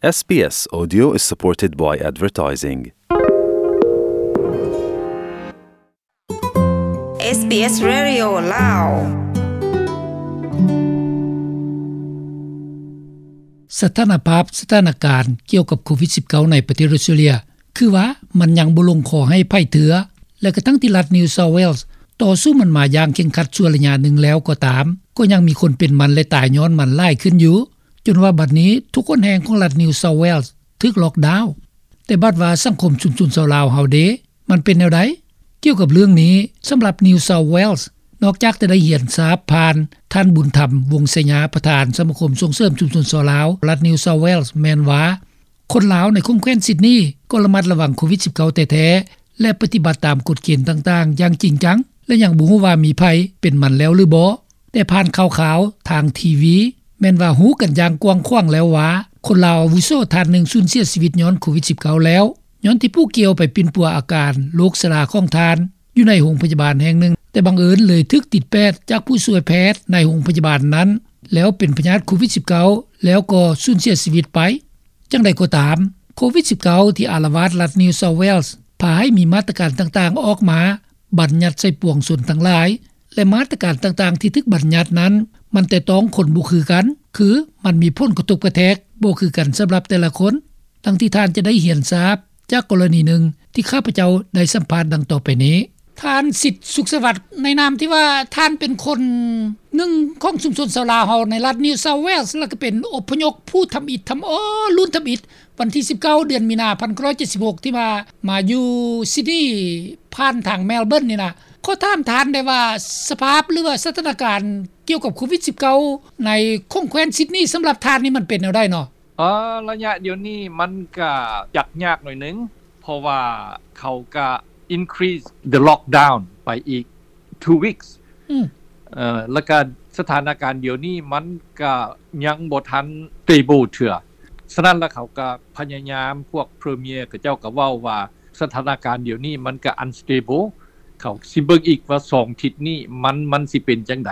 ເອສບີເອສ Audio is supported by advertising. ເອສບີເອສ Radio ລາວ. ສະຖານະພາບ ສະຖານະການກ່ຽວກັບໂຄວິດສິບເກົ້າ ໃນປະເທດອົດສະຕຣາເລຍ ຄືວ່າມັນຍັງບໍ່ລົງຄໍໃຫ້ໃຜເທື່ອ ແລະ ກະທັງທີ່ລັດ New South Wales ຕໍ່ສູ້ມັນມາຢ່າງເຄັ່ງຄັດຊົ່ວໄລຍະໜຶ່ງແລ້ວກໍຕາມ, ກໍຍັງມີຄົນເປັນມັນ ແລະ ຕາຍຍ້ອນມັນຫຼາຍຂຶ້ນຢູ່, ຈົນວ່າບັດນີ້ທຸກຫົນແຫ່ງຂອງລັດ New South Wales ຖືກລ໊ອກດາວ. ແຕ່ບັດວ່າສັງຄົມຊຸມຊົນຊາວລາວເຮົາເດ ມັນເປັນແນວໃດ? ກ່ຽວກັບເລື່ອງນີ້, ສຳລັບ New South Wales ນອກຈາກຈະໄດ້ຮຽນຊາບຜ່ານທ່ານ ບຸນທຳ ວົງໄຊຍາ ປະທານສະມາຄົມສົ່ງເສີມຊຸມຊົນຊາວລາວລັດ New South Wales ແມ່ນວ່າ ຄົນລາວໃນຂົງແຂວນຊິດນີກໍລະມັດລະວັງໂຄວິດສິບເກົ້າແທ້ໆ ແລະ ປະຕິບັດຕາມກົດເກນຕ່າງໆຢ່າງຈິງຈັງ ແລະ ຍັງບໍ່ຮູ້ວ່າມີໃຜເປັນມັນແລ້ວຫຼືບໍ່. ແຕ່ຜ່ານຂ່າວໆທາງທີວີ ແມ່ນວ່າຮູ້ກັນຢ່າງກວ້າງຂວາງແລ້ວວ່າ ຄົນລາວອາວຸໂສທ່ານໜຶ່ງສູນເສຍຊີວິດຍ້ອນໂຄວິດສິບເກົ້າແລ້ວ, ຍ້ອນທີ່ຜູ້ກ່ຽວໄປປິ່ນປົວອາການໂລກຊະລາຂອງທ່ານ ຢູ່ໃນໂຮງພະຍາບານແຫ່ງໜຶ່ງ, ແຕ່ບັງເອີນເລີຍຖືກຕິດແປດຈາກຜູ້ຊ່ວຍແພດໃນໂຮງພະຍາບານນັ້ນ ແລ້ວເປັນພະຍາດໂຄວິດສິບເກົ້າ ແລ້ວກໍສູນເສຍຊີວິດໄປ. ຈັ່ງໃດກໍຕາມ, ໂຄວິດສິບເກົ້າ ທີ່ອາລະວາດລັດ New South Wales ພາໃຫ້ມີມາດຕະການຕ່າງໆອອກມາບັນຍັດໃສ່ປວງຊົນທັງຫຼາຍ ແລະ ມາດຕະການຕ່າງໆທີ່ຖືກບັນຍັດນັ້ນ ມັນແຕະຕ້ອງຄົນບໍ່ຄືກັນ, ຄືມັນມີຜົນກະທົບກະແທກບໍ່ຄືກັນສຳລັບແຕ່ລະຄົນ. ດັ່ງທີ່ທ່ານຈະໄດ້ຮຽນຊາບຈາກກໍລະນີໜຶ່ງທີ່ຂ້າພະເຈົ້າໄດ້ສຳພາດດັ່ງຕໍ່ໄປນີ້. ທ່ານ ສິດ ສຸກສະຫວັດ, ໃນນາມທີ່ວ່າທ່ານເປັນຄົນໜຶ່ງຂອງຊຸມຊົນຊາວລາວເຮົາໃນລັດ New South Wales ແລ້ວກໍເປັນອົບພະຍົບຜູ້ທຳອິດທຳອໍ ລຸ້ນທຳອິດ ວັນທີສິບເກົ້າ ເດືອນມີນາ ພັນເກົ້າຮ້ອຍເຈັດສິບຫົກ ທີ່ວ່າມາຢູ່ຊິດນີ ຜ່ານທາງ Melbourne ນີ້ນະ, ຂໍຖາມທ່ານໄດ້ວ່າ ສະພາບ ຫຼືວ່າສະຖານະການກ່ຽວກັບໂຄວິດສິບເກົ້າ ໃນຂົງແຂວນຊິດນີ ສຳລັບທ່ານນີ້ມັນເປັນແນວໃດເນາະ? ເອີ ໄລຍະດຽວນີ້ມັນກະຈັກຍາກໜ້ອຍໜຶ່ງ ເພາະວ່າເຂົາກະ increase the lockdown ໄປອີກ two weeks ອືມ ເອີ ແລ້ວກະສະຖານະການດຽວນີ້ມັນກະຍັງບໍ່ທັນ stable ເທື່ອ. ສະນັ້ນລະເຂົາກະພະຍາຍາມ ພວກ Premier ເຂົາເຈົ້າກະເວົ້າວ່າ ສະຖານະການດຽວນີ້ມັນກະ unstable ເຂົາຊິເບິ່ງອີກວ່າສອງທິດນີ້ມັນ ມັນຊິເປັນຈັ່ງໃດ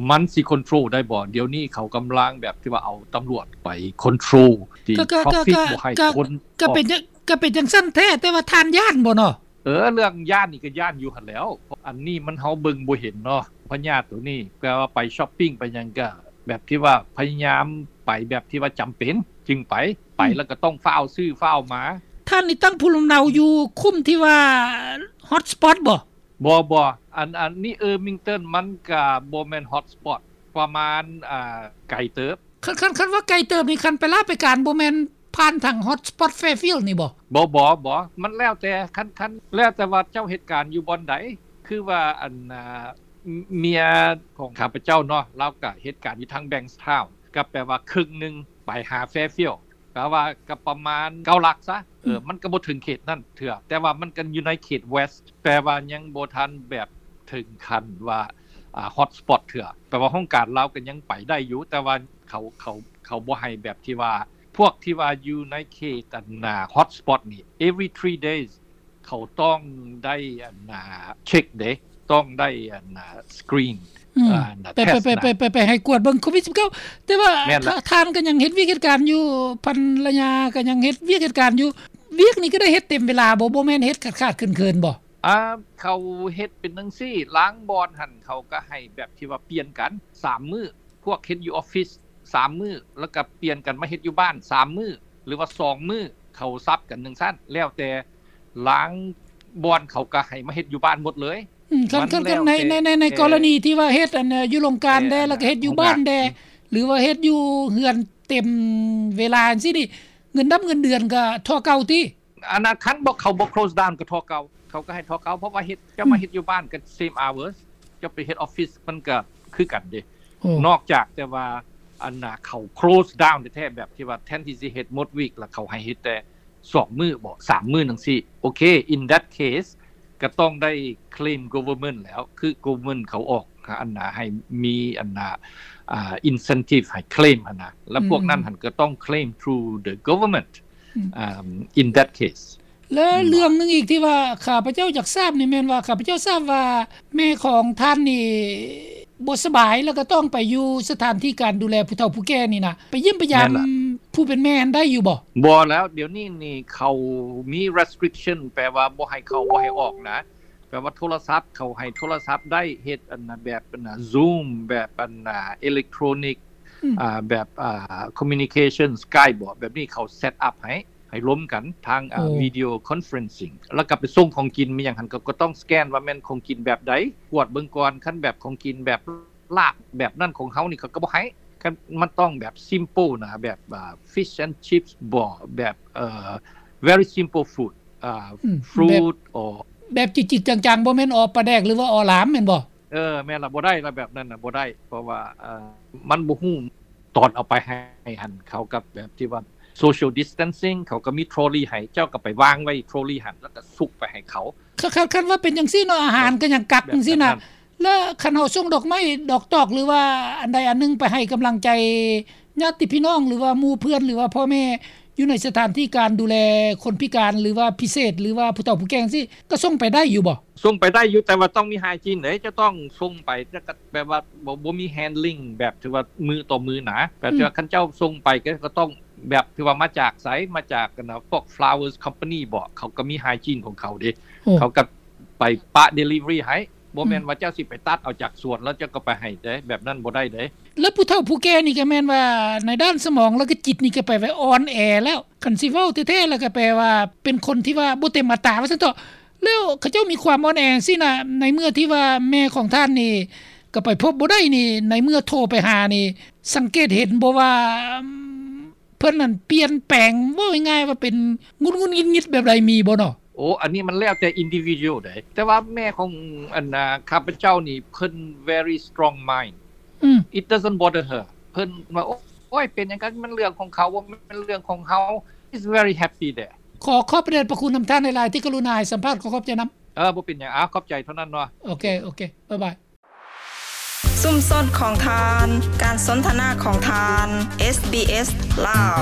ມັນຊິ control ໄດ້ບໍ່. ດຽວນີ້ເຂົາກຳລັງແບບທີ່ວ່າເອົາຕຳຫຼວດໄປ control ທີ່ traffic ບໍ່ໃຫ້ຄົນ ກະເປັນ ກະເປັນຈັ່ງຊັ້ນແທ້ ແຕ່ວ່າທ່ານຢ້ານບໍ່ເນາະ? ເອີ ເລື່ອງຢ້ານນີ້ກະຢ້ານຢູ່ຫັ້ນແຫຼ້ວ ອັນນີ້ມັນເຮົາເບິ່ງບໍ່ເຫັນເນາະ ພະຍາດໂຕນີ້ ແປວ່າໄປ shopping ໄປຫຍັງກະແບບທີ່ວ່າພະຍາຍາມໄປແບບທີ່ວ່າຈຳເປັນຈຶ່ງໄປ ໄປ ອືມ ແລ້ວກະຕ້ອງຟ້າວຊື້ຟ້າວມາ. ທ່ານນີ້ຕັ້ງພູມລຳເນົາຢູ່ຄຸ້ມທີ່ວ່າ hot spot ບໍ່? ບໍ່ ບໍ່ ອັນ ອັນນີ້ Ermington ມັນກະບໍ່ແມ່ນ hot spot ປະມານ ອ່າ ໄກເຕີບ. ຄັນ ຄັນ ຄັນວ່າໄກເຕີບນີ້ ຄັນໄປລາໄປການບໍ່ແມ່ນຜ່ານທາງ hot spot Fairfield ນີ້ບໍ່? ບໍ່ ບໍ່ ບໍ່ ມັນແລ້ວແຕ່ ຄັນ ຄັນ ແລ້ວແຕ່ວ່າເຈົ້າເຮັດການຢູ່ບ່ອນໃດ. ຄືວ່າ ອັນ ອ່າ ເມຍຂອງຂ້າພະເຈົ້າເນາະ ລາວກະເຮັດການຢູ່ທາງ Bankstown ກະແປວ່າເຄິ່ງໜຶ່ງໄປຫາ Fairfield ກະວ່າກະປະມານເກົ້າຫຼັກຊະ ເອີ ອືມ ມັນກະບໍ່ເຖິງເຂດນັ້ນເທື່ອ ແຕ່ວ່າມັນກະຢູ່ໃນເຂດ West ແປວ່າຍັງບໍ່ທັນແບບເຖິງຂັ້ນວ່າ ອ່າ hot spot ເທື່ອ ແປວ່າຫ້ອງການລາວກະຍັງໄປໄດ້ຢູ່ ແຕ່ວ່າເຂົາ ເຂົາ ເຂົາບໍ່ໃຫ້ແບບທີ່ວ່າ ພວກທີ່ວ່າຢູ່ໃນເຂດ ອັນນ່າ hot spot ນີ້ every three days ເຂົາຕ້ອງໄດ້ ອັນນ່າ ເຊັກເດ້ ຕ້ອງໄດ້ ອັນນ່າ screen ອືມ ອ່າ ໄປ test ໄປ ນະ ໄປ ໄປ ໄປໃຫ້ກວດເບິ່ງໂຄວິດສິບເກົ້າ. ແຕ່ວ່າ ແມ່ນລະ ທ່ານກະຍັງເຮັດວຽກເຮັດການຢູ່ ພັນລະຍາກະຍັງເຮັດວຽກເຮັດການຢູ່. ວຽກນີ້ກະໄດ້ເຮັດເຕັມເວລາບໍ່? ບໍ່ແມ່ນເຮັດຂາດໆເຂີນໆບໍ່? ອ່າ ເຂົາເຮັດເປັນຈັ່ງຊີ້ ລາງບ່ອນຫັ້ນເຂົາກະໃຫ້ແບບທີ່ວ່າປ່ຽນກັນສາມມື້ ພວກເຮັດຢູ່ອອບຟິດສາມມື້ ແລ້ວກະປ່ຽນກັນມາເຮັດຢູ່ບ້ານສາມມື້ ຫຼືວ່າສອງມື້ ເຂົາສັບກັນຈັ່ງຊັ້ນ ແລ້ວແຕ່ລາງບ່ອນເຂົາກະໃຫ້ມາເຮັດຢູ່ບ້ານໝົດເລີຍ. ອືມ ຄັນ ຄັນ ໃນ ໃນ ໃນກໍລະນີທີ່ວ່າເຮັດ ອັນ ຢູ່ໂລງການແດ່ ແລ້ວກະເຮັດຢູ່ບ້ານແດ່ ຫຼືວ່າເຮັດຢູ່ເຮືອນເຕັມເວລາຈັ່ງຊີ້ນີ້ ເງິນດຳເງິນເດືອນກະທໍ່ເກົ່າຕິ? ອັນນັ້ນ ຄັນບໍ່ ເຂົາບໍ່ close down ກະທໍ່ເກົ່າ ເຂົາກະໃຫ້ທໍ່ເກົ່າ ເພາະວ່າເຮັດ ເຈົ້າມາເຮັດຢູ່ບ້ານກະ same hours ເຈົ້າໄປເຮັດອອບຟິດມັນກະຄືກັນເດ້. ນອກຈາກແຕ່ວ່າ ອັນນ່າ ເຂົາ close down ແທ້ໆ ແບບທີ່ວ່າແທນທີ່ຊິເຮັດໝົດວີກ ລະເຂົາໃຫ້ເຮັດແຕ່ສອງມື້ບໍ ສາມມື້ຈັ່ງຊີ້ ໂອເຄ in that case ກະຕ້ອງໄດ້ claim government ແລ້ວ ຄື government ເຂົາອອກ ອັນນ່າ ໃຫ້ມີ ອັນນ່າ ອ່າ incentive ໃຫ້ claim ຫັ້ນນະ ລະພວກນັ້ນຫັ້ນກະຕ້ອງ claim through the government ອືມ ອ່າ in that case. ແລະ ເລື່ອງໜຶ່ງອີກທີ່ວ່າຂ້າພະເຈົ້າຢາກຊາບນີ້ແມ່ນວ່າ ຂ້າພະເຈົ້າຊາບວ່າແມ່ຂອງທ່ານນີ້ບໍ່ສະບາຍ ແລ້ວກະຕ້ອງໄປຢູ່ສະຖານທີ່ການດູແລຜູ້ເຖົ້າຜູ້ແກ່ນີ້ນະ ໄປຢ້ຽມໄປຢາມ ຜູ້ເປັນແມ່ຫັ້ນໄດ້ຢູ່ບໍ່? ບໍ່ແລ້ວ ດຽວນີ້ນີ້ເຂົາມີ restriction ແປວ່າບໍ່ໃຫ້ເຂົ້າ ບໍ່ໃຫ້ອອກນະ ແປວ່າໂທລະສັບ ເຂົາໃຫ້ໂທລະສັບໄດ້ ເຮັດອັນນະ ແບບອັນນະ Zoom ແບບອັນນະ electronic ອືມ ອ່າ ແບບ ອ່າ communication Skype ບໍ ແບບນີ້ເຂົາ set up ໃຫ້ ໃຫ້ລົມກັນທາງ ອ່າ ໂອ້ video conferencing ແລ້ວກໍໄປສົ່ງຂອງກິນ ມີຫຍັງຫັ້ນ ກໍ ກໍຕ້ອງສະແກນວ່າແມ່ນຂອງກິນແບບໃດ ກວດເບິ່ງກ່ອນ ຄັນແບບຂອງກິນແບບ ລາບແບບນັ້ນຂອງເຮົານີ້ ເຂົາກໍບໍ່ໃຫ້ ຄັນມັນຕ້ອງແບບ simple ນະ ແບບ ອ່າ fish and chips ບໍ ແບບ ເອີ very simple food ອ່າ ອືມ fruit ແບບ or ແບບຈິດໆ ຈັງໆ ບໍ່ແມ່ນອໍປາແດກ ຫຼືວ່າອໍຫຼາມແມ່ນບໍ່? ເອີ ແມ່ນລະ ບໍ່ໄດ້ລະ ແບບນັ້ນນະ ບໍ່ໄດ້ ເພາະວ່າ ເອີ ມັນບໍ່ຮູ້ ຕອນເອົາໄປໃຫ້ຫັ້ນ ເຂົາກໍແບບທີ່ວ່າ social distancing ເຂົາກໍມີ trolley ໃຫ້ ເຈົ້າກໍໄປວາງໄວ້ trolley ຫັ້ນ ແລ້ວກໍສຸກໄປໃຫ້ເຂົາ. ຄັນ ຄັນ ຄັນວ່າເປັນຈັ່ງຊີ້ເນາະ ອາຫານກໍຍັງກັກຈັ່ງຊີ້ນະ ແລ້ວຄັນເຮົາສົ່ງດອກໄມ້ດອກຕອກ ຫຼືວ່າອັນໃດອັນໜຶ່ງໄປໃຫ້ກຳລັງໃຈຍາດຕິພີ່ນ້ອງ ຫຼືວ່າໝູ່ເພື່ອນ ຫຼືວ່າພໍ່ແມ່ ຢູ່ໃນສະຖານທີ່ການດູແລຄົນພິການ ຫຼືວ່າພິເສດ ຫຼືວ່າຜູ້ເຖົ້າຜູ້ແກ່ຈັ່ງຊີ້ ກໍສົ່ງໄປໄດ້ຢູ່ບໍ່? ສົ່ງໄປໄດ້ຢູ່ ແຕ່ວ່າຕ້ອງມີ hygiene ເດ້ ຈະຕ້ອງສົ່ງໄປ ແຕ່ກໍແບບວ່າບໍ່ ບໍ່ມີ handling ແບບທີ່ວ່າມືຕໍ່ມືນະ ແບບທີ່ວ່າ ອືມ ຄັນເຈົ້າສົ່ງໄປກໍ ກໍຕ້ອງ ແບບທີ່ວ່າມາຈາກໃສ ມາຈາກອັນນະ ພວກ Flowers Company ບໍ ເຂົາກໍມີ hygiene ຂອງເຂົາເດ້ ໂອ້ ເຂົາກໍໄປປະ delivery ໃຫ້ ບໍ່ແມ່ນ ອືມ ວ່າເຈົ້າຊິໄປຕັດເອົາຈາກສວນ ແລ້ວເຈົ້າກໍໄປໃຫ້ເດ້ ແບບນັ້ນບໍ່ໄດ້ເດ້. ແລ້ວຜູ້ເຖົ້າຜູ້ແກ່ນີ້ກໍແມ່ນວ່າໃນດ້ານສະໝອງ ແລ້ວກໍຈິດນີ້ກໍແປວ່າອ່ອນແອແລ້ວ ຄັນຊິເວົ້າແທ້ໆ ແລ້ວກໍແປວ່າເປັນຄົນທີ່ວ່າບໍ່ເຕັມອັດຕາວ່າຊັ້ນເຖາະ. ແລ້ວເຂົາເຈົ້າມີຄວາມອ່ອນແອຈັ່ງຊີ້ນະ ໃນເມື່ອທີ່ວ່າແມ່ຂອງທ່ານນີ້ກໍໄປພົບບໍ່ໄດ້ນີ້ ໃນເມື່ອໂທໄປຫານີ້ ສັງເກດເຫັນບໍ່ວ່າ ເພິ່ນນັ້ນປ່ຽນແປງ ເວົ້າງ່າຍໆ ວ່າເປັນຫງຸດໆ ຫງິດໆ ແບບໃດ ມີບໍ່ເນາະ? ໂອ້ ອັນນີ້ມັນແລ້ວແຕ່ individual ເດ້ ແຕ່ວ່າແມ່ຂອງອັນນາ ຂ້າພະເຈົ້ານີ້ ເພິ່ນ very strong mind ອືມ it doesn't bother her ເພິ່ນວ່າ ໂອ້ຍ ເປັນຫຍັງກັນ ມັນເລື່ອງຂອງເຂົາ ບໍ່ແມ່ນເລື່ອງຂອງເຮົາ is very happy there. ຂໍຂອບພະເດດພະຄຸນນຳທ່ານຫຼາຍໆ ທີ່ກະລຸນາໃຫ້ສຳພາດ ຂໍຂອບໃຈນຳ. ເອີ ບໍ່ເປັນຫຍັງ ອາ ຂອບໃຈເທົ່ານັ້ນເນາະ. ໂອເຄ ໂອເຄ ບາຍບາຍ. ຊຸມຊົນຂອງທ່ານ ການສົນທະນາຂອງທ່ານ ເອສບີເອສ ລາວ.